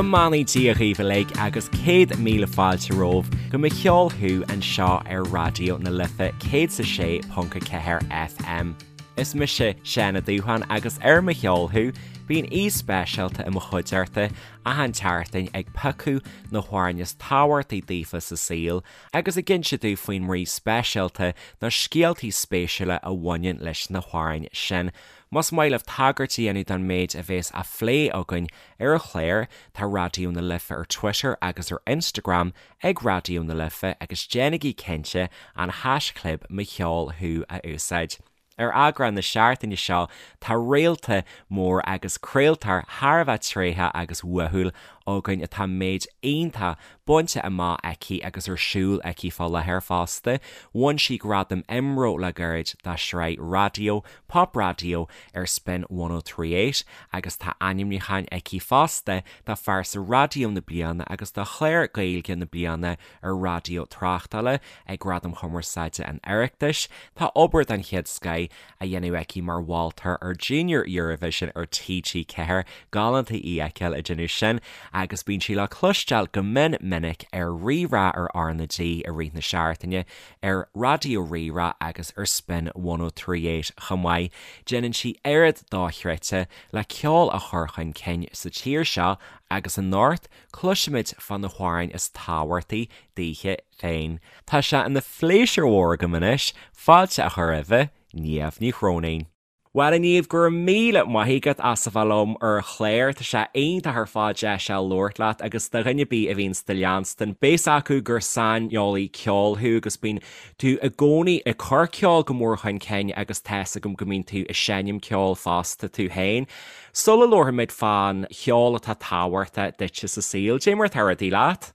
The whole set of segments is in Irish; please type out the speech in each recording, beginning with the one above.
Go mbeannaí Dia dhaoibh uilig agus 100,000 fáilte romhaibh go Mo Cheol Thú anseo ar Raidió na Life 106.4 FM. Is mise Seán Ó Dúsháin agus ar Mo Cheol Thú bíonn aoi speisialta i mo chuideachta achan tseachtain ag piocadh na hamhráin is tábhachtaí daofa sa saol agus ag inse domh faoin mbrí speisialta nó scéaltaí spéisiúla a bhaineann leis na hamhráin sin. Más maith libh tagairt a dhéanamh don méid a bhéas á phlé againn ar an chlár, tá Raidió na Life ar Twitter agus ar Instagram ag Raidió na Life agus déanaigí cinnte an haischlib Mo Cheol Thú a úsáid. Ar eagrán na seachtaine seo tá réalta mór agus craoltóir thar a bheith tréitheach agus uathúil againn atá méid iontach bainte amach aici agus ar siúl aici fá láthair fosta. Bhain sí gradam IMRO le gairid dá sraith raidió Pop Raidió ar Spin 103.8 agus tá ainmniúcháin aici fosta do Phearsa Raidió na Bliana agus do Chlár Gaeilge na Bliana ar Raidió Tráchtála ag Gradaim Chumarsáide an Oireachtais. Tá obair den chéad scoith á dhéanamh aici mar mholtóir ar Junior Eurovision ar TG4, galánta í a fheiceáil ag déanamh sin, agus bíonn sí le cloisteáil go mion minic ar Rí-Rá ar R na G i rith na seachtaine, ar Raidió Rí-Rá agus ar Spin 103.8 chomh maith. Déanann sí oiread dochreidte le ceol a chur chun cinn sa tír seo agus anocht cloisfimid fá na hamhráin is tábhachtaí daoithe féin. Tá sé ina phléisiúr mhór agam anois fáilte a chur roimhe, Niamh Ní Chróinín. Bhuel, a Niamh, go raibh míle maith agat as a bheith liom ar an chlár. Tá sé iontach ar fad deis a labhairt leat agus do dhuine ar bith a bhíonns do leanstan, beidh a fhios acu gur saineolaí ceoil thú agus bíonn tú i gcónaí ag cur ceol go mór chun cinn agus tá fhios agam go mbíonn tú ag seinm ceoil fosta tú féin. Sula labharfaimid fán cheol atá tábhachtach duitse sa saol, cad é mar atá rudaí leat?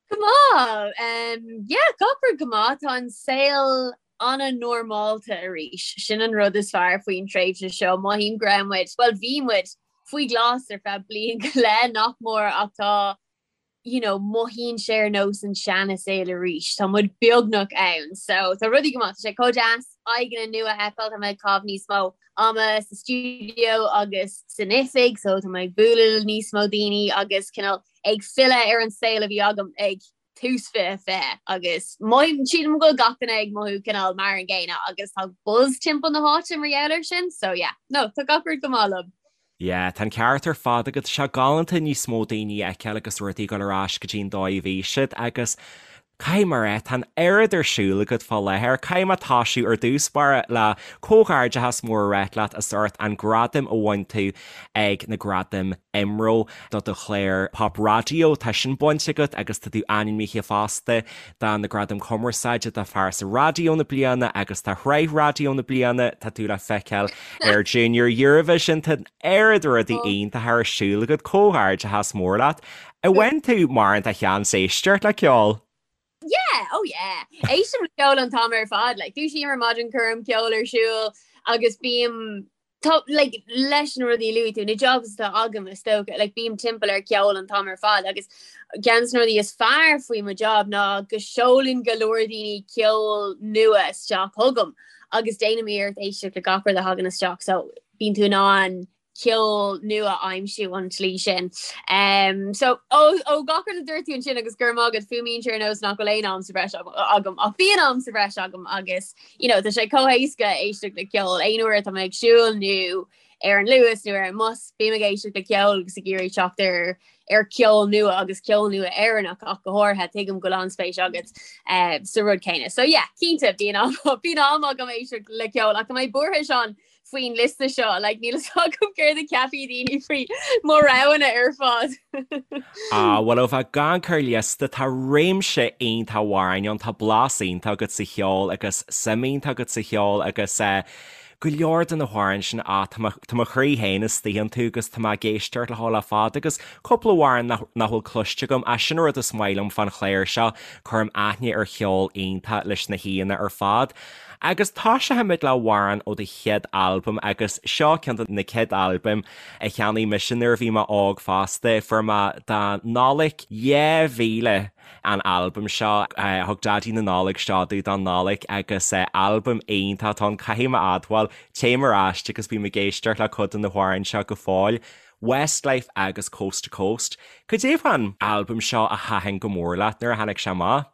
Go maith! Yeah, gach rud go maith. Tá an saol an-normálta arís. Sin an rud is fearr faoin tréimhse seo. Mothaím go raibh muid, bhuel bhí muid, faoi ghlas ar feadh bliain go leith, nach mór, ach tá, you know, mothaíonn sé ar nós an seana-saol arís. Tá muid beagnach ann. So tá rudaí go maith. Tá sé chomh deas aghaidheanna nua a fheiceáil. Tá mé ag caitheamh níos mó ama sa stiúideo agus san oifig, so tá mé ag bualadh le níos mó daoine agus cineál ag filleadh ar an saol a bhí agam ag tús 2020 agus mothaím, sílim go bhfuil gach duine ag mothú cineál mar an gcéanna agus tá buzz timpeall na háite mar gheall air sin, so yeah, no, tá gach rud go maith liom. Yeah, tá an ceart ar fad agat, tá sé galánta níos mó daoine a fheiceáil agus rudaí ag dul ar ais go dtí an dóigh a bhí siad agus caithfidh mé a rá, tá an oiread ar siúl agat fá láthair, caithfidh mé toisiú ar dtús báire le comhghairdeachas mór a ráit leat as ucht an gradam a bhain tú ag na Gradaim IMRO do do chlár Pop Raidió, tá sin bainte agat agus tá tú ainmnithe fosta do na Gradaim Cumarsáide do Phearsa Raidió na Bliana agus do Shraith Raidió na Bliana, tá tú le feiceáil ar Junior Eurovision, tá an oiread rudaí iontacha ar siúl agat, comhghairdeachas mór leat. An bhfaigheann tú mórán de sheans éisteacht le ceol? Yeah, oh yeah. Éistim le ceol an t-am ar fad, like, dúisím ar maidin, cuirim ceol ar siúl agus bím Tá, like, leis na rudaí a luaigh tú, na jobs atá agam is dócha, like, bím timpeall ar cheol an t-am ar fad agus ceann de na rudaí is fearr faoi mo job ná go seolann go leor daoine ceol nua isteach chugam agus déanaim iarracht éisteacht le gach rud a thagann isteach so bíonn tú in ann ceol nua a aimsiú an tslí sin. Um, so ó, ó gach rud a dúirt tú ansin agus go raibh maith agat fuaimíonn sé ar nós nach bhfuil aon am sa bhreis agam ach bíonn am sa bhreis agam agus you know, tá sé chomh héasca éisteacht le ceol aon uair atá mé ag siúl nó ar an Luas nó ar an mbus, bím ag éisteacht le ceol agus ag iarraidh teacht ar ar ceol nua agus ceol nua Éireannach ach go háirithe tuigim go bhfuil an-spéis agat uh, sa rud céanna. So yeah, cinnte bíonn am bíonn am agam éisteacht le ceol ach tá mé buartha Seán faoin liosta seo, like, níl a fhios agam céard a cheapfaidh daoine faoi mo roghanna ar fad. Ah, bhuel, ó bheith ag amharc ar liosta, tá réimse iontach amhráin ann, tá blas iontach agat sa cheol agus suim iontach agat sa cheol agus eh, go leor de na hamhráin sin, ah, tá mo, tá mo chroí féin istigh iontu agus tá mé ag éisteacht leo le fada agus cúpla amhrán nach, nach bhfuil cloiste agam, ah, sin an rud is maith liom fán chlár seo, cuirim aithne ar cheol iontach leis na haíonna ar fad. Agus toiseochaimid le amhrán ó do chéad albam agus seo ceann de na céad albaim a cheannaigh mise nuair a bhí mé óg fosta. Fuair mé do Nollaig 2000 an albam seo. Thug Daidí na Nollag seo domh don Nollaig agus albam iontach atá ann, caithfidh mé a admháil, téim ar ais agus bím ag éisteacht le cuid de na hamhráin seo go fóill. Westlife agus Coast to Coast. Cad é fán albam seo a thaitin go mór leat nuair a tháinig sé amach?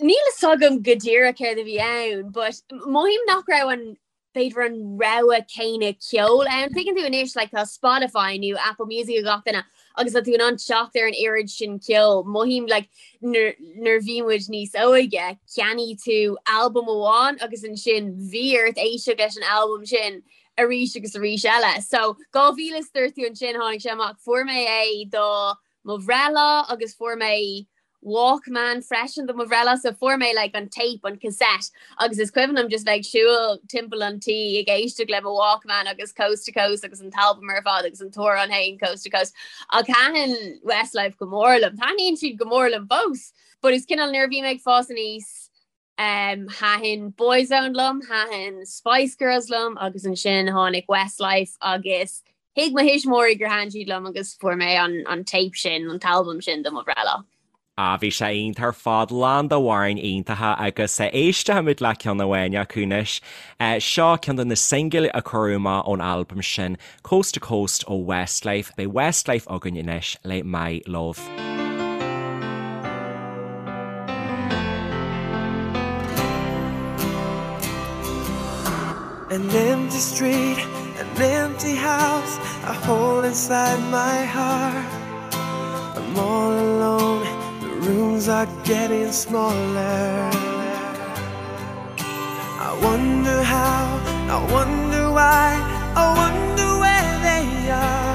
Níl a fhios agam go díreach céard a bhí ann, but mothaím nach raibh an b'fhéidir an rogha céanna ceoil ann. Tuigeann tú anois like tá Spotify nó Apple Music ag gach duine agus tá tú in ann teacht ar an oiread sin ceoil. Mothaím like nuair nuair bhí muid níos óige, cheannaigh tú albam amháin agus ansin bhí ort éisteacht leis an albam sin arís agus arís eile. So 2000 is dúirt tú ansin tháinig sé amach, fuair mé é do mo bhreithlá agus fuair mé Walkman freisin do mo bhreithlá so fuair mé like an tape, an cassette agus is cuimhin liom just bheith ag siúl timpeall an tí ag éisteacht le mo Walkman agus Coast to Coast agus an t-albam ar fad agus an t-amhrán féin Coast to Coast. Ach thaitin Westlife go mór liom. Taitníonn siad go mór liom fós. But is cineál nuair a bhí mé ag fás aníos Um, thaitin Boyzone liom, thaitin Spice Girls liom agus ansin tháinig Westlife agus thuig mo thuismitheoirí gur thaitin siad liom agus fuair mé an, an tape sin, an t-albam sin do mo bhreithlá. Ah, bhí sé iontach ar fad, lán d'amhráin iontacha agus éistfimid le ceann amháin acu anois. Seo ceann de na singil a cuireadh amach ón albam sin, Coast to Coast ó Westlife. Beidh Westlife againn anois le My Love. An empty street, an empty house, a hole inside my heart. I'm all alone, the rooms are getting smaller. I wonder how, I wonder why, I wonder where they are.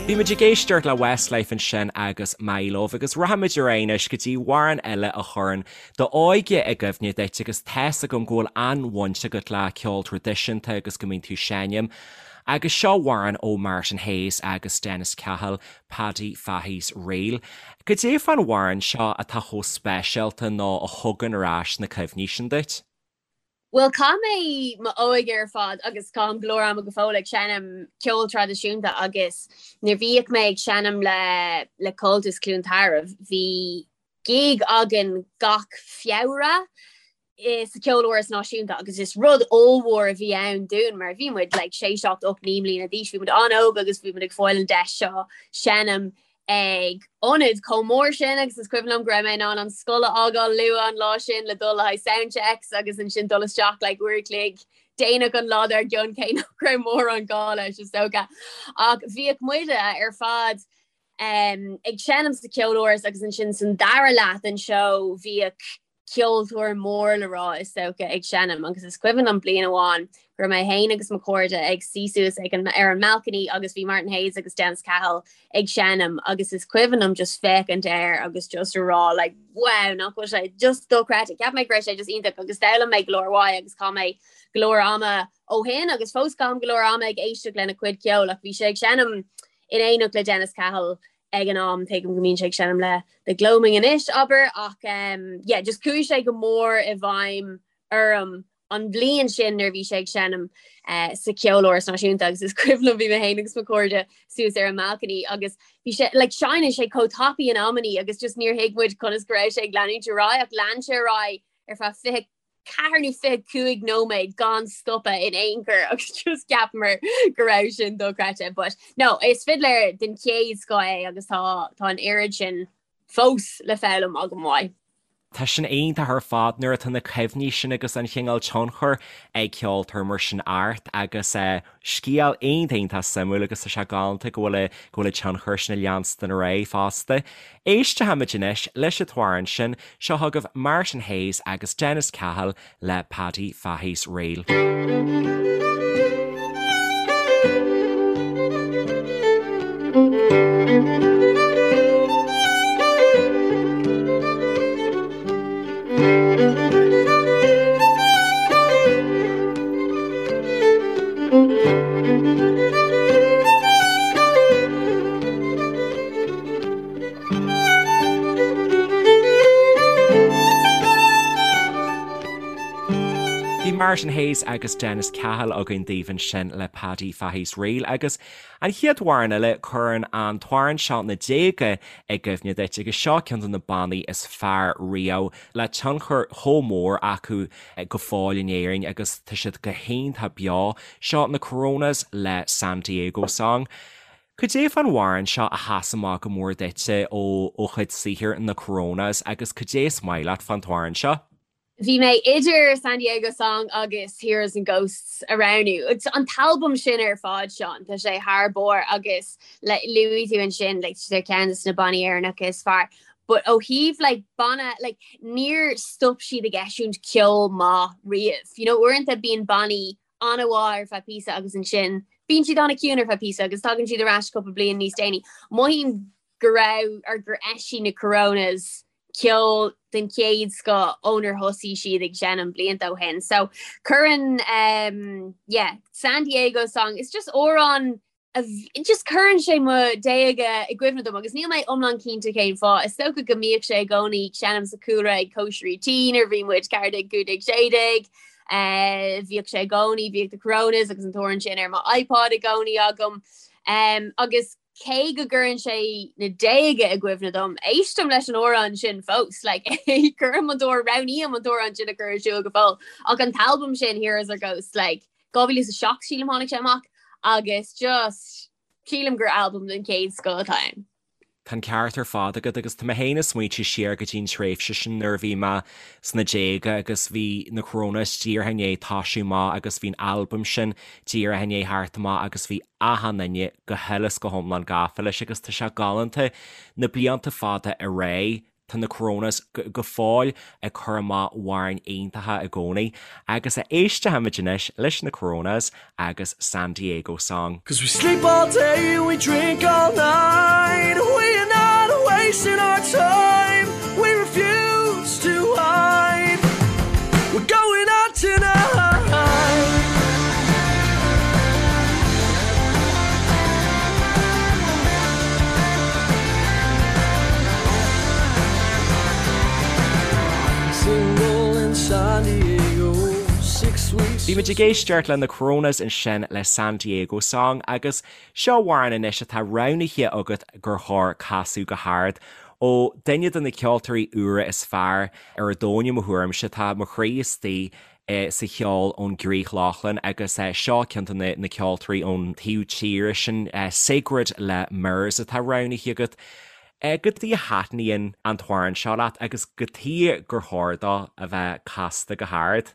Bhí muid ag éisteacht le Westlife ansin agus My Love agus rachaimid ar aghaidh anois go dtí amhrán eile a chuireann d'óige i gcuimhne duit agus tá's agam go bhfuil an-bhaint agat le ceol traidisiúnta agus go mbíonn tú ag seinm. Agus seo amhrán ó Martin Hayes agus Dennis Cahill, Paddy Fahy's Reel. Cad é fán amhrán seo atá chomh speisialta nó a thugann ar ais na cuimhní sin duit? Bhuel, chaith mé m'óige ar fad agus caithim go leor ama go fóill ag seinm ceol traidisiúnta agus nuair bhíodh mé ag seinm le le Comhaltas Cluain Tarbh, bhí gig againn gach Feabhra sa Cheoláras Náisiúnta agus is rud ollmhór a bhí ann dúinn mar bhí muid like 6, 7, 8, 9 mbliana d'aois, bhí muid an-óg agus bhí muid ag fáil an deis seo seinm ag ionad chomh mór sin agus is cuimhin liom go raibh mé in ann an scoil a fhágáil luath an lá sin le dul le haghaidh sound checks agus ansin dul isteach like uair a chloig déanach an lá dár gcionn cé nach raibh mórán gá leis is dócha. Ach bhíodh muide ar fad um, ag seinm sa Cheoláras agus ansin san dara leath den seó bhíodh ceoltóir mór le rá is dócha ag seinm agus is cuimhin liom bliain amháin go raibh mé féin agus mo chairde ag suí suas ag an ar an mbalcony agus bhí Martin Hayes agus Dennis Cahill ag seinm agus is cuimhin liom just féachaint air agus just a rá like wow nach bhfuil sé just dochreidte. Cheap mé go raibh sé just iontach agus d'fhoghlaim mé go leor uaidh agus chaith mé go leor ama ó shin agus fós caithim go leor ama ag éisteacht lena chuid ceoil ach bhí sé ag seinm in éineacht le Dennis Cahill ag an am, tuigim go mbíonn sé ag seinm le The Gloaming anois, abair, ach um, yeah, just chuaigh sé go mór i bhfeidhm orm an bhliain sin nuair a bhí sé ag seinm uh, sa Cheoláras Náisiúnta agus is cuimhin liom bhí mé féin agus mo chairde suas ar an mbalcony agus bhí sé like, seinneann sé chomh tapaidh in amannaí agus just níor thuig muid conas go raibh sé ag leanúint ar aghaidh ach lean sé ar aghaidh ar feadh 20 4 nó 25 nóiméad gan stopadh in aon chor agus just cheapamar go raibh sin dochreidte. But no, is fidléir den chéad scoth é agus tá tá an oiread sin fós le foghlaim agam uaidh. Tá sin iontach ar fad nuair atá na cuimhní sin agus an chineál tionchair ag ceoltóir mar sin ort agus scéal iontach iontach suimiúil agus tá sé galánta go bhfuil go bhfuil an tionchar sin ag leanstan ar aghaidh fosta. Éistfimid anois leis an t-amhrán sin, seo chugaibh Martin Hayes agus Dennis Cahill le Paddy Fahy's Reel. Bhí Bhí Martin Hayes agus Dennis Cahill againn daoibh ansin le Paddy Fahy's Reel agus an chéad amhrán eile, cuireann an t-amhrán seo na déaga i gcuimhne duit agus seo ceann de na bannaí is fearr riamh le tionchar chomh mór acu go fóill in Éirinn agus tá siad go hiontach beo. Seo na Coronas le San Diego Song. Cad é fán amhrán seo a sheas amach go mór duitse ó chuid saothair na Coronas agus cad é is maith leat fán t-amhrán seo? Bhí mé idir San Diego Song agus Heroes and Ghosts a roghnú. An t-albam sin ar fad, Seán, tá sé thar barr agus luaigh tú ansin like, tá ceann de na bannaí Éireannacha is fearr. But ó thaobh like, banna, like, níor stop siad ag eisiúint ceol maith riamh. You know, uaireanta bíonn bannaí an-mhaith ar feadh píosa agus ansin bíonn siad an-chiúin ar feadh píosa agus tagann siad ar ais cúpla bliain níos déanaí. Mothaím go raibh or gur eisigh na Coronas ceol den chéad scoth ónar thosaigh siad ag seinm blianta ó shin. So cuireann um, yeah, San Diego song, it's just amhrán just cuireann sé mo déaga i gcuimhne dom agus níl mé iomlán cinnte cén fáth. Is dócha go mbíodh sé i gcónaí ag seinm sa chúlra ag cóisirí tí nuair a bhí muid 14, 15, 16. Bhíodh sé i gcónaí, bhíodh The Coronas agus an t-amhrán sin ar mo iPod i gcónaí agam. Agus cé go gcuireann sé na déaga i gcuimhne dom, éistim leis an amhrán sin fós. Like, cuirim an t-amhrán, roghnaím an t-amhrán sin a chur ar siúl go fóill. Ach an t-albam sin, Heroes or Ghosts, like, 2007 sílim tháinig sé amach agus just sílim gur albam den chéad scoth atá ann. Tá an ceart ar fad agat agus tá mé féin ag smaointiú siar go dtí an tréimhse sin nuair a bhí mé sna déaga agus bhí na Coronas díreach i ndiaidh toisiú amach agus bhí an albam sin díreach i ndiaidh theacht amach agus bhí achan duine go huile is go hiomlán gafa leis agus tá sé galánta na blianta fada ar aghaidh Tá na Coronas go fóill ag cur amach amhráin iontacha i gcónaí agus éistfimid anois leis na Coronas agus San Diego Song. Cause we sleep all day and we drink all night We are not wasting our time We refuse to hide We're going out tonight Bhí muid ag éisteacht le na Coronas ansin le San Diego Song agus seo amhrán anois atá roghnaithe agat gur chóir casadh go hard ó duine de na ceoltóirí úra is fearr ar an domhan i mo thuairimse. Tá mo chroí istigh sa cheol ón gCrích Lochlann agus seo ceann de na ceoltóirí ón taobh tíre sin, Sigrid le Mirrors atá roghnaithe agat. Cad chuige a thaitníonn an t-amhrán seo leat agus cad chuige gur chóir dó a bheith casta go hard?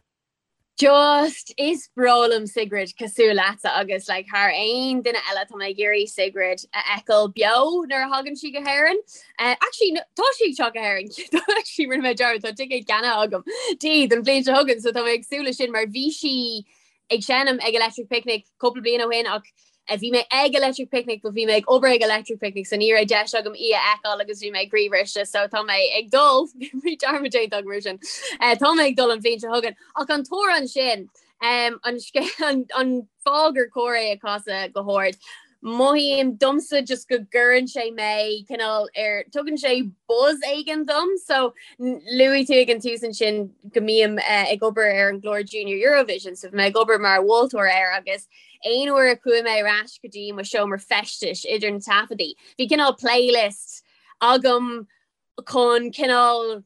Just, is breá liom Sigrid cosúil leatsa agus like thar aon duine eile tá mé ag iarraidh Sigrid a fheiceáil beo nuair a thagann sí go hÉirinn. Eh, actually, no, tá sí ag teacht go hÉirinn. Actually, rinne mé dearmad, tá ticéad ceannaithe agam di don bhliain seo chugainn, so tá mé ag súil leis sin mar bhí sí ag seinm ag Electric Picnic cúpla bliain ó shin ach eh, bhí mé ag Electric Picnic but bhí mé ag obair ag Electric Picnic so ní raibh deis agam í a fheiceáil agus bhí mé croíbhriste so tá mé ag dul bhí dearmad déanta agam ar sin. Eh, tá mé ag dul an bhliain seo chugainn ach an t-amhrán sin Um, an, an, an fáth gur cóir é a chasadh go hard. Mothaím domsa just go gcuireann sé mé cineál ar tugann sé buzz éigin dom, so luaigh tú ag an tús ansin go mbím uh, ag obair ar an gclár Junior Eurovision, so bhí mé ag obair mar mholtóir air agus aon uair a chuaigh mé ar ais go dtí mo seomra feistis idir na taifeadaí. Bhí cineál playlist agam chun cineál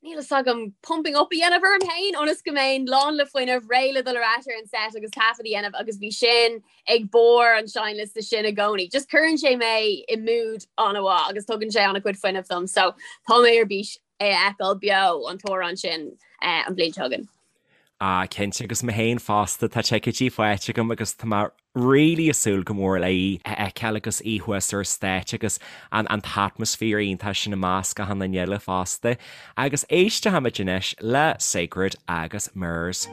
níl fhios agam pumping up a dhéanamh orm féin ionas go mbeinn lán le fuinneamh, réidh le dul ar ais ar an set agus taifead a dhéanamh agus bhí sin ag barr an seinnliosta sin i gcónaí. Just cuireann sé mé i mood an-mhaith agus tugann sé an-chuid fuinnimh dom so tá mé ar bís é a fheiceáil beo an t-amhrán sin eh, an bhliain seo chugainn. Ah, cinnte, agus mé féin fosta, tá ticéidí faighte agam agus tá mé really ag súil go mór le í a fheiceáil agus í thuas ar stáitse agus an an t-atmaisféar iontach sin i measc achan duine eile fosta. Agus éistfimid anois le Sigrid agus Mirrors.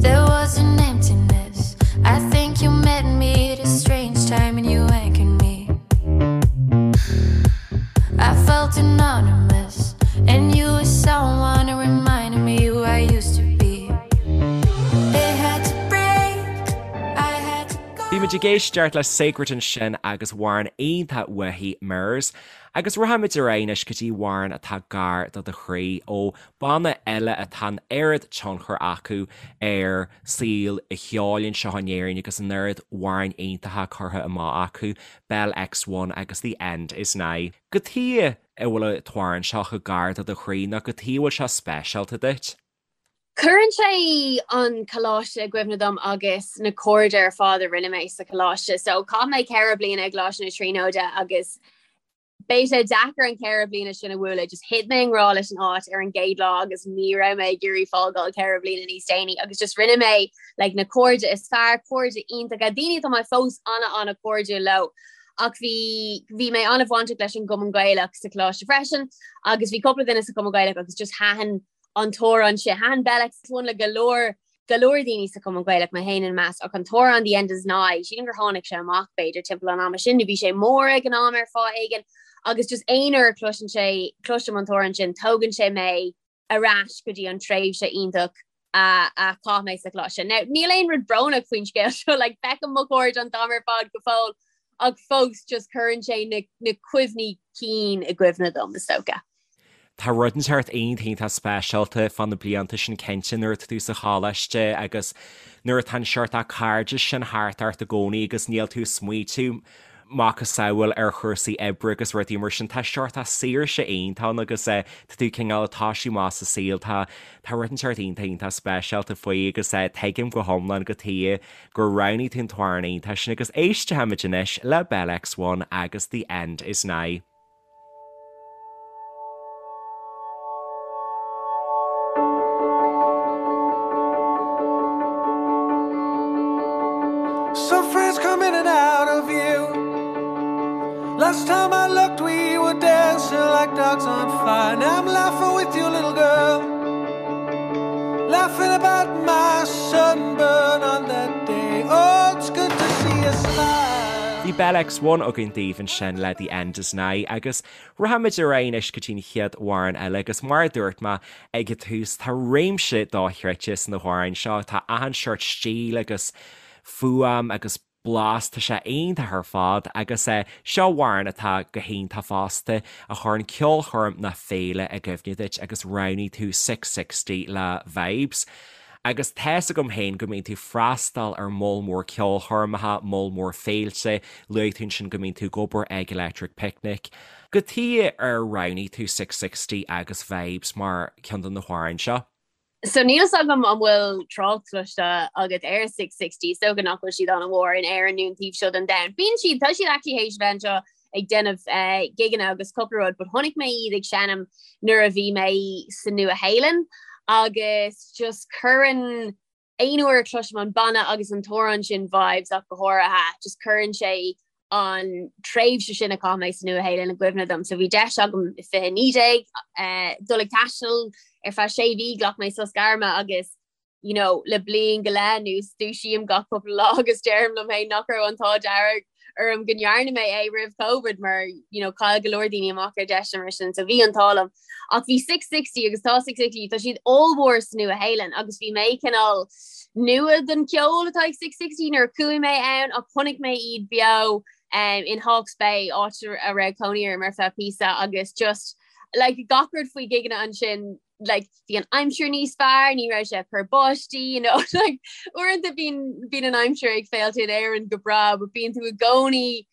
There was an emptiness. I think you met me at a strange time and you anchored me. I felt anonymous, and you were someone who reminded me who I used to be. It had to break, I had to go. Bhí muid ag éisteacht le Sacred ansin agus amhrán iontach uaithi, Mirrors. Agus rachaimid ar aghaidh anois go dtí amhrán atá gar do do chroí, ó banna eile atá an oiread tionchar acu ar saol an cheoil anseo in Éirinn agus an oiread amhráin iontacha curtha amach acu, Bell X1 agus The End Is Nigh. Cad chuige a bhfuil an t-amhrán seo chomh gar do do chroí nó cad chuige a bhfuil sé speisialta duit? Cuireann sé an coláiste i gcuimhne dom agus na cairde ar fad a rinne mé sa choláiste. So chaith mé 4 bliana i gColáiste na Tríonóide agus beidh sé deacair an 4 bliana sin a bhualadh. Just thit mé i ngrá leis an áit ar an gcéad lá agus ní raibh mé ag iarraidh fágáil 4 bliana níos déanaí agus just rinne mé like, na cairde is fearr, cairde iontacha, daoine atá mé fós ana ana cairdiúil leo. Ach bhí bhí mé an-bhainteach leis an gCumann Gaelach sa choláiste freisin agus bhí cúpla duine sa Chumann Gaelach agus just thaitin an t-amhrán sin. Thaitin Bell X1 le go leor go leor daoine sa Chumann Gaelach, mé féin ina measc, ach an t-amhrán The End Is Nigh, sílim gur tháinig sé amach b'fhéidir timpeall an ama sin, nó bhí sé mór ag an am ar fáth éigin, agus just aon uair a chloiseann sé, cloisim an t-amhrán sin, tógann sé mé ar ais go dtí an tréimhse iontach a a chaith mé sa choláiste. Now, níl aon rud brónach faoin scéal seo, like, feicim mo chairde an t-am ar fad go fóill, ach fós just cuireann sé na na cuimhní cinn i gcuimhne dom, is dócha. Tá rud inteacht iontach iontach speisialta fá na blianta sin cinnte nuair atá tú sa choláiste agus nuair atá an seort cairdeas sin thart ort i gcónaí agus níl tú ag smaoitiú macasamhail ar chúrsaí oibre agus rudaí mar sin. Tá seort saoirse iontach ann agus tá tú cineál ag toisiú amach sa saol. Tá tá rud inteacht iontach iontach speisialta faoi agus tuigim go hiomlán cad chuige gur roghnaigh tú an t-amhrán iontach sin agus éistfimid anois le Bell X1 agus The End Is Nigh. Some friends come in and out of view. Last time I looked, we were dancing like dogs on fire. Now I'm laughing with you, little girl. Laughing about my sunburn on that day. Oh, it's good to see you smile. Bhí Bell X1 againn daoibh ansin le The End Is Nigh agus rachaimid ar aghaidh anois go dtí an chéad amhrán eile agus mar a dúirt mé ag an tús tá réimse dochreidte sna hamhráin seo, tá achan seort stíl agus fuaim agus blas, tá sé iontach ar fad agus seo amhrán atá go hiontach fosta a chuireann ceolchoirm nó féile i gcuimhne duit agus roghnaigh tú Six60 le Vibes. Agus tá's agam féin go mbíonn tú freastal ar moll mór ceolchoirmeacha, moll mór féilte, luaigh tú ansin go mbíonn tú ag obair ag Electric Picnic. Cad chuige ar roghnaigh tú Six60 agus Vibes mar ceann de na hamhráin seo? So níl fhios agam an bhfuil trácht cloiste agat ar Six60, is dócha nach bhfuil siad an-mhór in Éirinn nó an taobh seo den domhan. Bíonn siad, tá siad actually théis bheith anseo ag déanamh gigeanna agus cúpla rud, but chonaic mé iad ag seinm nuair a bhí mé sa Nua-Shéalainn agus just cuireann aon uair a chloisim an banna agus an t-amhrán sin Vibes ach go háirithe, just cuireann sé an tréimhse sin a chaith mé sa Nua-Shéalainn i gcuimhne dom. So bhí deis agam i 2019 dul ag taisteal ar feadh sé mhí, ghlac mé sos gairme agus you know, le bliain go leith anuas dúisím gach cúpla lá agus deirim liom féin nach raibh an t-ádh dearg orm go ndearna mé é roimh Covid mar you know, chaill go leor daoine amach ar deiseanna mar sin, so bhí an t-ádh liom. Ach bhí Six60 agus tá Six60, tá siad ollmhór sa Nua-Shéalainn agus bhí mé cineál nua don cheol atá ag Six60 nuair a chuaigh mé ann ach chonaic mé iad beo um, in Hawke's Bay, áit a raibh cónaí orm ar feadh píosa agus just like gach rud faoi gigeanna ansin like bhí an aimsir níos fearr, ní raibh sé ag cur báistí, you know, like uaireanta bíonn bíonn an aimsir ag féilte in Éirinn go breá, but bíonn tú i gcónaí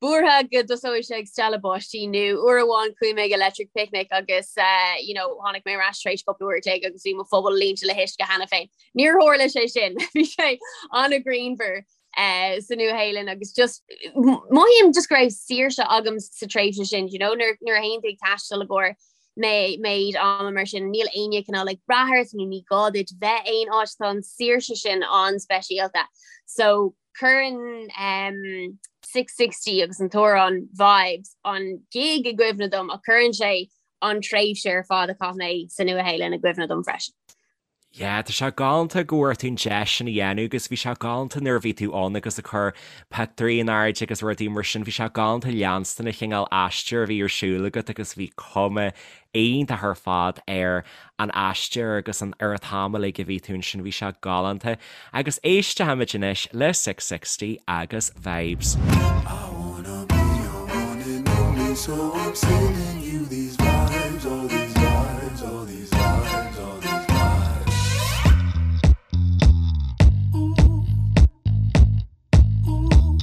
buartha go dtosóidh sé ag stealladh báistí nó uair amháin chuaigh mé ag Electric Picnic agus eh, you know, tháinig mé ar ais tar éis cúpla uair a chloig agus bhí mo phuball líonta le huisce cheana féin. Níor tharla sé sin, bhí sé an-ghrianmhar eh, sa Nua-Shéalainn agus just mothaím just go raibh saoirse agam sa tréimhse sin, you know, nuair nuair a théann tú ag taisteal i gcomhair mé méid ama mar sin níl éinne cineál ag brath ort nó ní gá duit bheith aon áit tá an saoirse sin an-speisialta. So cuireann um, 660 agus an t-amhrán Vibes an gig i gcuimhne dom ach cuireann sé an tréimhse ar fad a chaith mé sa Nua-Shéalainn i gcuimhne dom freisin. Yeah, tá sé galánta go bhfuair tú an deis sin a dhéanamh agus bhí sé galánta nuair a bhí tú ann agus ag cur pictiúirí in airde agus rudaí mar sin, bhí sé galánta leanstan an chineál aistear a bhí ar siúl agat agus bhí cuma iontach ar fad ar an aistear agus an ar an t-am uilig a bhí tú ansin, bhí sé galánta. Agus éistfimid anois le Six60 agus Vibes. I wanna be your one and only so I'm sending you these vibes, all these vibes, all these vibes, all these vibes. Ooh, ooh, ooh.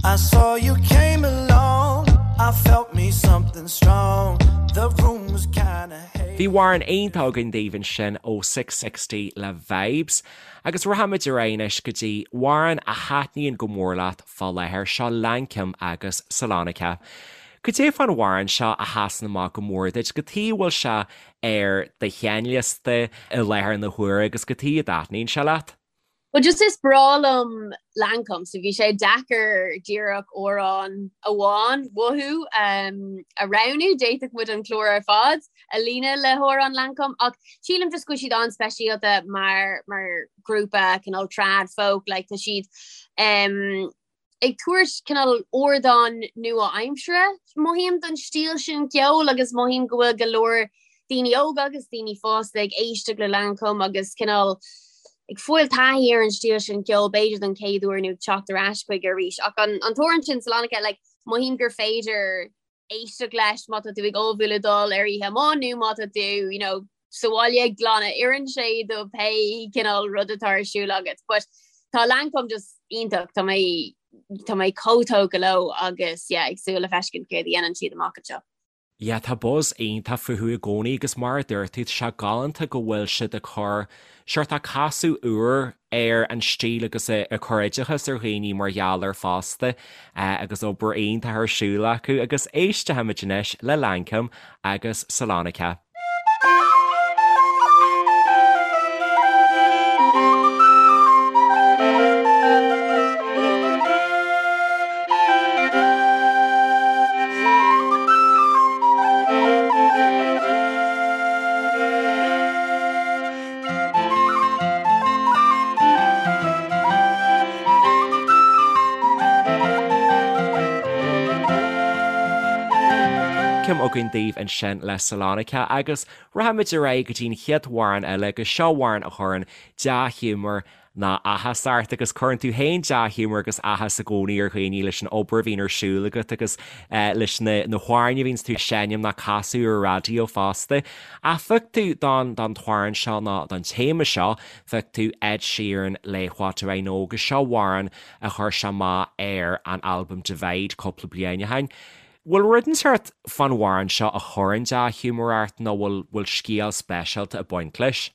I saw you came along, I felt me something strong. The room was kinda hazy. Bhí amhrán iontach againn daoibh ansin ó Six60 le Vibes. Agus rachaimid ar aghaidh anois go dtí amhrán a thaitníonn go mór leat fá láthair, seo Lankum agus Salonika. Cad é fán amhrán seo a sheasann amach go mór duit, cad chuige a bhfuil sé ar do sheinnliosta i láthair na huaire agus cad chuige a dtaitníonn sé leat? Well just is breá liom Lankum so bhí sé deacair díreach amhrán amháin uathu a roghnú, d'fhéadfadh muid an clár ar fad a líonadh le hamhráin Lankum ach sílim just go bhfuil siad an-speisialta mar mar grúpa cineál trad folk like tá siad um, ag tabhairt cineál ardán nua-aimseartha, mothaím, don stíl sin ceoil agus mothaím go bhfuil go leor daoine óga agus daoine fásta ag éisteacht le Lankum agus cineál ag fáil taithí ar an stíl sin ceoil b'fhéidir don chéad uair nó ag teacht ar ais chuige arís. Ach an t-amhrán sin Salonika, like, mothaím gur féidir éisteacht leis má tá tú ag ullmhú le dul ar oíche amuigh nó má tá tú you know, sa bhaile ag glanadh oireann sé do pé cineál rud atá ar siúl agat. But tá Lankum just iontach, tá mé tá mé chomh tógtha leo agus yeah, ag súil le feiscint céard a dhéanann siad amach anseo. Yeah, tá buzz iontach fúthu i gcónaí agus mar a dúirt tú, tá sé galánta go bhfuil siad ag cur sórt casadh úr ar an stíl agus ag cur oideachas ar dhaoine mar gheall air fosta agus obair iontach ar siúl acu agus éistfimid anois le Lankum agus Salonika. Lankum againn daoibh ansin le Salonika agus rachaimid ar aghaidh go dtí an chéad amhrán eile agus seo amhrán a chuireann dea-ghiúmar ná áthas ort agus cuireann tú féin dea-ghiúmar agus áthas i gcónaí ar dhaoine leis an obair a bhíonn ar siúl agat agus leis na na hamhráin a bhíonns tú ag seinm ná casadh ar an raidió fosta. Ach phioc tú don don t-amhrán seo ná don téama seo, phioc tú Ed Sheeran le What Do I Know agus seo amhrán a chuir sé amach ar an albam Divide cúpla bliain ó shin. Bhfuil rud inteacht fán amhrán seo a chuireann dea-ghiúmar ort nó bhfuil bhfuil scéal speisialta ag baint leis?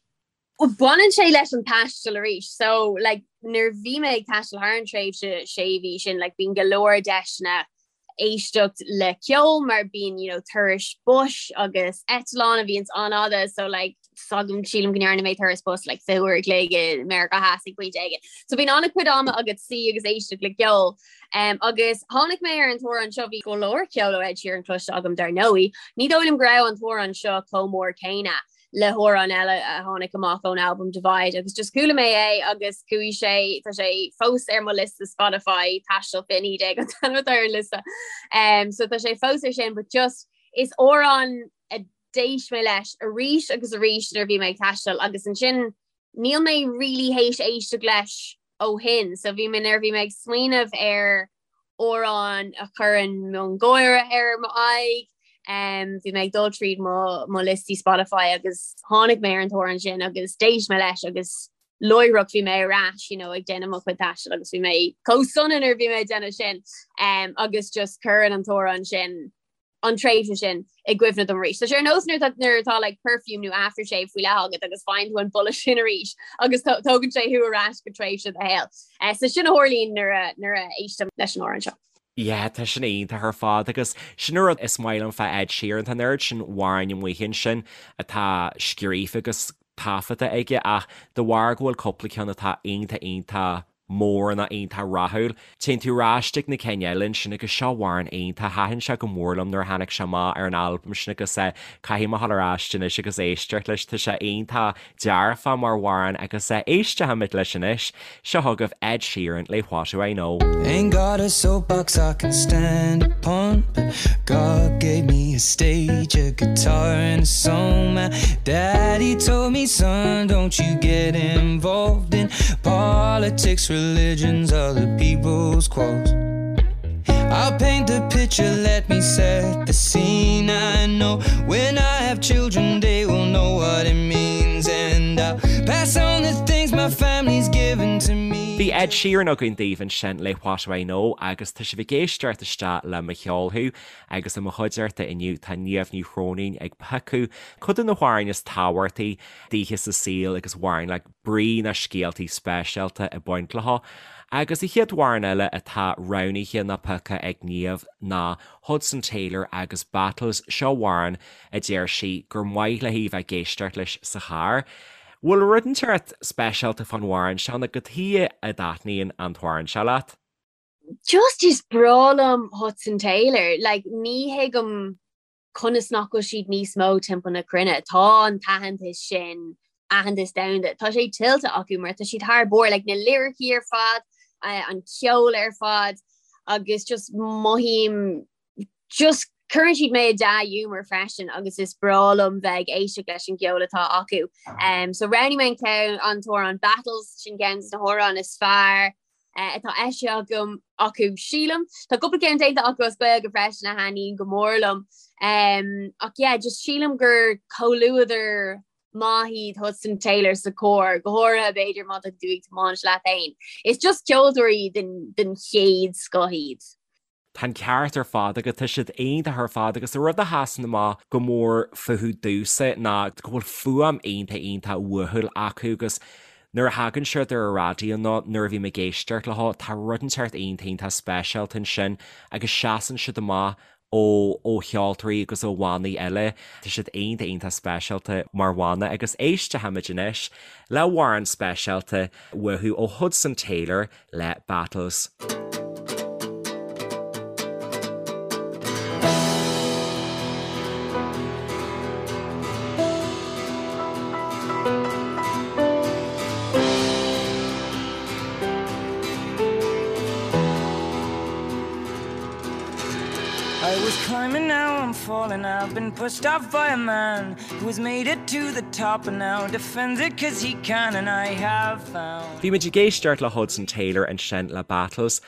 Bhuel, baineann sé leis an taisteal arís. So, like, nuair a bhí mé ag taisteal thar an tréimhse sé mhí sin, like, bíonn go leor deiseanna éisteacht le ceol mar bíonn, you know, turais bus agus eitleán a bhíonns an-fhada, so, like, s'agam, sílim go ndearna mé turas bus, like, 20 uair a chloig i Meiriceá Theas ag pointe éigin. So bíonn an-chuid ama agat suí agus éisteacht le ceol. Um, agus tháinig mé ar an t-amhrán seo, bhí go leor ceol ó Ed Sheeran cloiste agam dar ndóigh. Ní dóigh liom go raibh an t-amhrán seo chomh mór céanna. le hamhrán eile a tháinig amach ón albam Divide agus just chuala mé é agus chuaigh sé tá sé fós ar mo liosta Spotify Taisteal 2019 an t-ainm atá ar an liosta. Um, so tá sé fós ar sin, but just is amhrán a d'éist mé leis arís agus arís nuair a bhí mé ag taisteal agus ansin níl mé really théis éisteacht leis ó shin, so bhí mé nuair a bhí mé ag smaoineamh ar amhrán a chuireann miongháire ar m'aghaidh. Bhí mé ag dul tríd mo mo liostaí Spotify agus tháinig mé ar an t-amhrán sin agus d'éist mé leis agus láithreach bhí mé ar ais you know, ag déanamh mo chuid taistil agus bhí mé chomh sona nuair a bhí mé ag déanamh sin um, agus just cuireann an t-amhrán sin an tréimhse sin i gcuimhne dom arís. Tá sé ar nós nuair atá nuair atá like perfume nó aftershave faoi leith agat agus faigheann tú an boladh sin arís agus tógann sé thú ar ais go tréimhse de do shaol. Eh, so sin a tharlaíonn nuair a nuair a éistim leis an amhrán seo. Yeah, tá sin iontach ar fad agus sin an rud is maith liom fá Ed Sheeran, tá an oiread sin amhráin amuigh ansin atá scríofa agus taifeadta aige ach de bharr go bhfuil cúpla ceann atá iontach iontach. mór nó iontach rathúil. Téann tú ar ais chuig na cinn eile ansin agus seo amhrán iontach, thaitin sé go mór liom nuair a tháinig sé amach ar an albam sin agus caithfidh mé dhul ar ais anois agus éisteacht leis, tá sé iontach dearfach mar amhrán agus éistfimid leis anois. Seo chugaibh Ed Sheeran le What Do I Know. Ain't got a soapbox I can stand upon But God gave me a stage, a guitar and a song My daddy told me, son, don't you get involved in politics, religions, other people's quarrels I'll paint the picture, let me set the scene I know when I have children, they will know what it means And I'll pass on the things my family's given to me Bhí Ed Sheeran againn daoibh ansin le What Do I Know agus tá sibh ag éisteacht isteach le Mo Cheol Thú agus i mo chuideachta inniu tá Niamh Ní Chróinín ag piocadh cuid de na hamhráin is tábhachtaí daoithe sa saol agus amhráin le brí nó scéaltaí speisialta ag baint leo. Agus an chéad amhrán eile atá roghnaithe nó pioctha ag Niamh ná Hudson Taylor agus Battles, seo amhrán a deir sí gur maith léi bheith ag éisteacht leis sa charr. Bhfuil rud inteacht speisialta fán amhrán seo nó cad chuige a dtaitníonn an t-amhrán seo leat? Just is breá liom Hudson Taylor, like ní thuigim conas nach bhfuil siad níos mó timpeall na cruinne. Tá an t-aitheantas sin, aitheantas domhanda, tá sé tuillte acu mar tá siad thar barr, like na liricí ar fad, an ceol ar fad agus just mothaím just cuireann siad mé i dea-ghiúmar freisin agus is breá liom bheith ag éisteacht leis an gceol atá acu. Um, so roghnaigh mé an ceann an t-amhrán Battles sin ceann de na hamhráin is fearr uh, atá eisithe agam acu sílim. Tá cúpla ceann déanta acu as Gaeilge freisin a thaitníonn go mór liom. Um, ach yeah, just sílim gur comhluadar maith iad Hudson Taylor sa charr, go háirithe b'fhéidir má tá tú ag tiomáint leat féin. Is just ceoltóirí den, den chéad scoth iad. Tá an ceart ar fad agat, tá siad iontach ar fad agus an rud a sheasann amach go mór fúthu domhsa ná go bhfuil fuaim iontach iontach uathúil acu agus nuair a thagann siad ar an raidió nó nuair a bhím ag éisteacht leo tá rud inteacht iontach iontach speisialta ansin agus seasann siad amach ó ó cheoltóirí agus ó bhannaí eile. Tá siad iontach iontach speisialta mar bhanna agus éistfimid anois le hamhrán speisialta uathu ó Hudson Taylor le Battles. I was climbing now I'm falling I've been pushed off by a man Who has made it to the top and now defends it cause he can and I have found. Bhí muid ag éisteacht le Hudson Taylor ansin le Battles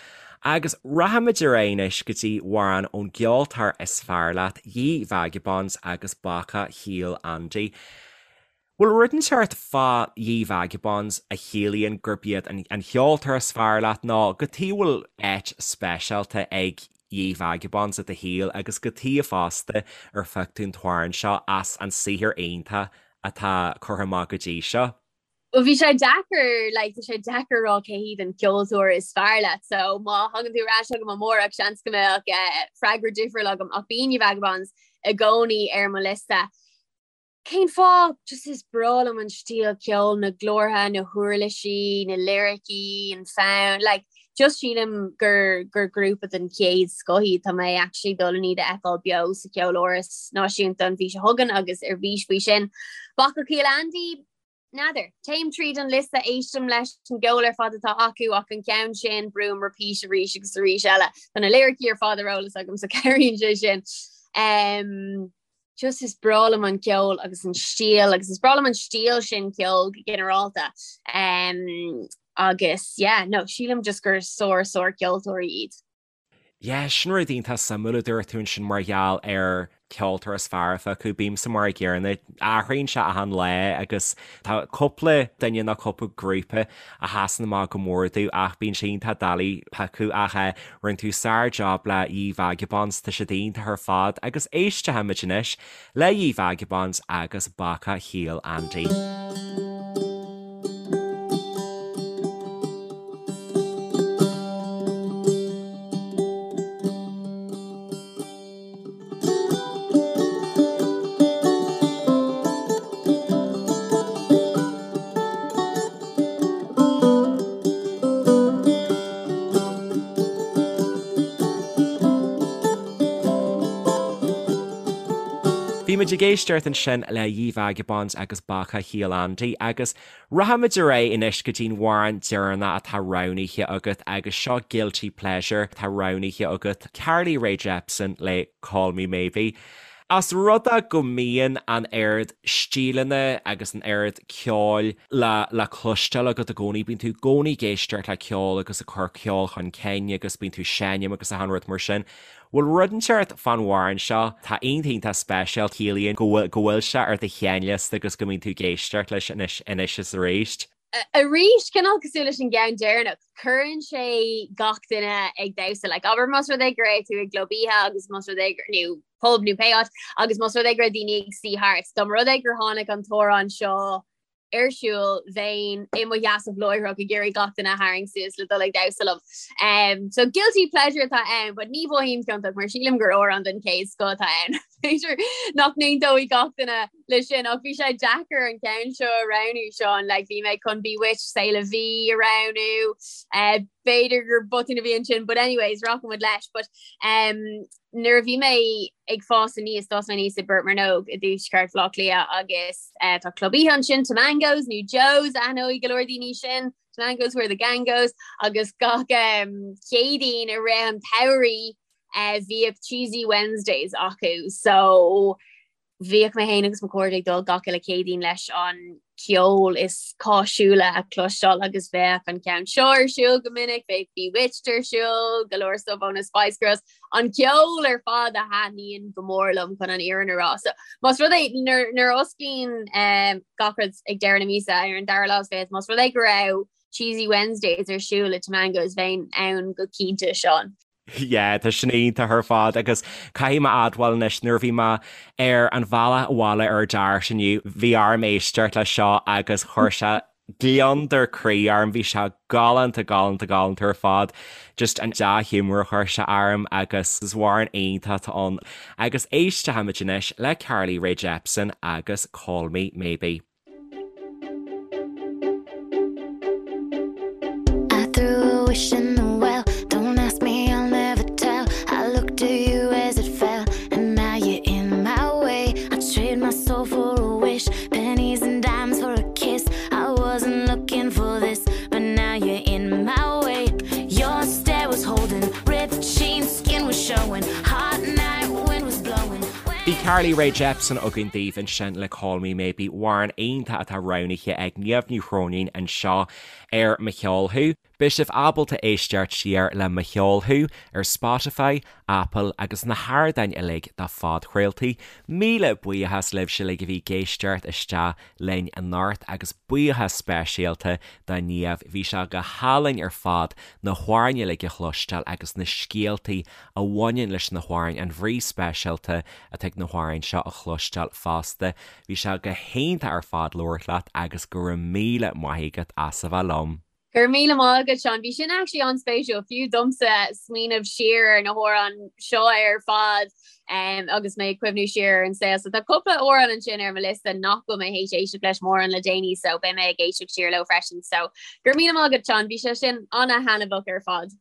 agus rachaimid ar aghaidh anois go dtí amhrán ón gceoltóir is fearr leat, Ye Vagabonds agus Bacach Shíol Andy. Bhfuil rud inteacht fá Ye Vagabonds a chiallaíonn gurb iad an cheoltóir is fearr leat nó cad chuige a bhfuil áit speisialta ag Ye Vagabonds i do shaol agus cad chuige fosta ar phioc tú an t-amhrán seo as an saothar iontach atá curtha amach go dtí seo? Bhuel bhí sé deacair, like, tá sé deacair a rá cé hiad an ceoltóir is fearr leat, so má thagann tú ar ais chugam amárach seans go mbeadh eh, freagra difriúil agam ach bíonn Ye Vagabonds i gcónaí ar mo liosta. Cén fáth? Just is breá liom an stíl ceoil, na glórtha, na huirlisí, na liricí, an fonn, like just sílim gur gur grúpa den chéad scoth iad. Tá mé actually dul chun iad a fheiceáil beo sa Cheoláras Náisiúnta an mhí seo chugainn agus ar bís faoi sin. Bacach Shíol Andy, N'fheadar. Téim tríd an liosta, éistim leis an gceol ar fad atá acu ach an ceann sin, brúim repeat arís agus arís eile. Tá na liricí ar fad ar eolas agam so cabhraíonn sé sin. Um, just is breá liom an ceol agus an stíl agus is breá liom an stíl sin ceoil go ginearálta. Um, agus yeah, no, sílim just gur sár sár ceoltóirí iad. Yeah, sin rud iontach suimiúil a dúirt tú ansin mar gheall ar ceoltóir is fearr a phiocadh. Bímse mar a gcéanna, athraíonn sé achan lá agus tá cúpla duine nó cúpla grúpa a sheasann amach go mór domh ach bíonn sé iontach doiligh piocadh ach eh, rinne tú sár-job le Ye Vagabonds, tá siad iontach ar fad agus éistfimid anois le Ye Vagabonds agus Bacach Shíol Andy. muid ag éisteacht ansin le Ye Vagabonds agus Bacach Shíol Andy agus rachaimid ar aghaidh anois go dtí'n amhrán deireanach atá roghnaithe agat agus seo Guilty Pleasure atá roghnaithe agat, Carly Rae Jepsen le Call Me Maybe. Os rud é go mbíonn an oiread stíleanna agus an oiread ceoil le le cloisteáil agat i gcónaí, bíonn tú i gcónaí ag éisteacht le ceol agus ag cur ceol chun cinn agus bíonn tú ag seinm agus achan rud mar sin. Bhfuil rud inteacht fán amhrán seo atá iontach iontach speisialta, ciallaíonn go bhfuil go bhfuil sé ar do sheinnliosta agus go mbíonn tú ag éisteacht leis anois anois is arís? Arís, cineál cosúil leis an gceann deireanach, cuireann sé gach duine ag damhsa. Like, abair más rud é go raibh tú i gclub oíche agus más rud é gur, nó pub nó pé áit, agus más rud é go raibh daoine ag suí thart, dá mba rud é gur tháinig an t-amhrán seo ar siúl, bheinn i mo sheasamh láithreach ag iarraidh gach duine a tharraingt suas le dul ag damhsa liom. Um, so guilty pleasure atá ann, but ní mhothaím ciontach mar sílim gur amhrán den chéad scoth atá ann. B'fhéidir nach n-aontóidh gach duine leis sin ach bhí sé deacair an ceann seo a roghnú Seán like bhí mé chun Bewitched C'est La Vie a roghnú uh, b'fhéidir gur botún a bhí ansin but anyways rachaimid leis but um, nuair a bhí mé ag fás aníos d'fhás mé aníos i bPort Mearnóg i dtuaisceart Bhaile Átha Cliath agus uh, tá club oíche ansin Tamango's nó Joe's aithneoidh go leor daoine sin Tamango's where the gang goes agus gach um, Céadaoin i rith an tsamhraidh uh, bhíodh Cheesy Wednesdays acu so Bhíodh mé féin agus mo chairde ag dul gach uile Céadaoin leis an ceol is cáisiúla a chloisteáil agus bheadh an ceann seo ar siúl go minic, bheadh Bewitched ar siúl, go leor stuff ó na Spice Girls, an ceol ar fad a thaitníonn go mór liom chun an fhírinne a rá. So más rud é nuair a osclaíonn gach rud ag deireadh na míosa ar an dara lá is fichead, más rud é go raibh Cheesy Wednesdays ar siúl i Tamango's bheinn ann go cinnte, Seán. Yeah, tá sin iontach ar fad agus caithfidh mé admháil anois nuair a bhí mé ar an bhealach abhaile ar DART inniu, bhí orm éisteacht leis seo agus chuir sé gliondar croí orm, bhí sé galánta, galánta, galánta ar fad. Just an dea-ghiúmar a chuir sé orm agus is amhrán iontach atá ann. Agus éistfimid anois le Carly Rae Jepsen agus Call Me Maybe. I threw a wish in the well Don't ask me, I'll never tell I looked to you as it fell And now you're in my way I trade my soul for a wish Pennies and dimes for a kiss I wasn't looking for this But now you're in my way Your stare was holding Ripped jeans, skin was showing Hot night, wind was blowing Bhí Carly Rae Jepsen againn daoibh ansin le Call Me Maybe, amhrán iontach atá roghnaithe ag Niamh Ní Chróinín anseo ar Mo Cheol Thú. Beidh sibh ábalta éisteacht siar le Mo Cheol Thú ar Spotify, Apple agus na hardáin uilig do phodchraoltaí. Míle buíochas libhse uilig a bhí ag éisteacht isteach linn anocht agus buíochas speisialta do Niamh, bhí sé go hálainn ar fad na hamhráin uilig a chloisteáil agus na scéaltaí a bhaineann leis na hamhráin, an bhrí speisialta atá ag na hamhráin seo a chloisteáil fosta. Bhí sé go hiontach ar fad labhairt leat agus go raibh míle maith agat as a bheith liom. Go raibh míle maith agat, Seán. Bhí sin actually an-spéisiúil, fiú domsa, smaoineamh siar ar na hamhráin seo ar fad agus mé ag cuimhniú siar ar an saol. So tá cúpla amhrán ansin ar mo liosta nach bhfuil mé théis éisteacht leis mórán le déanaí so beidh mé ag éisteacht siar leo freisin. So go raibh míle maith agat, Seán. Bhí sé sin an-thaitneamhach ar fad.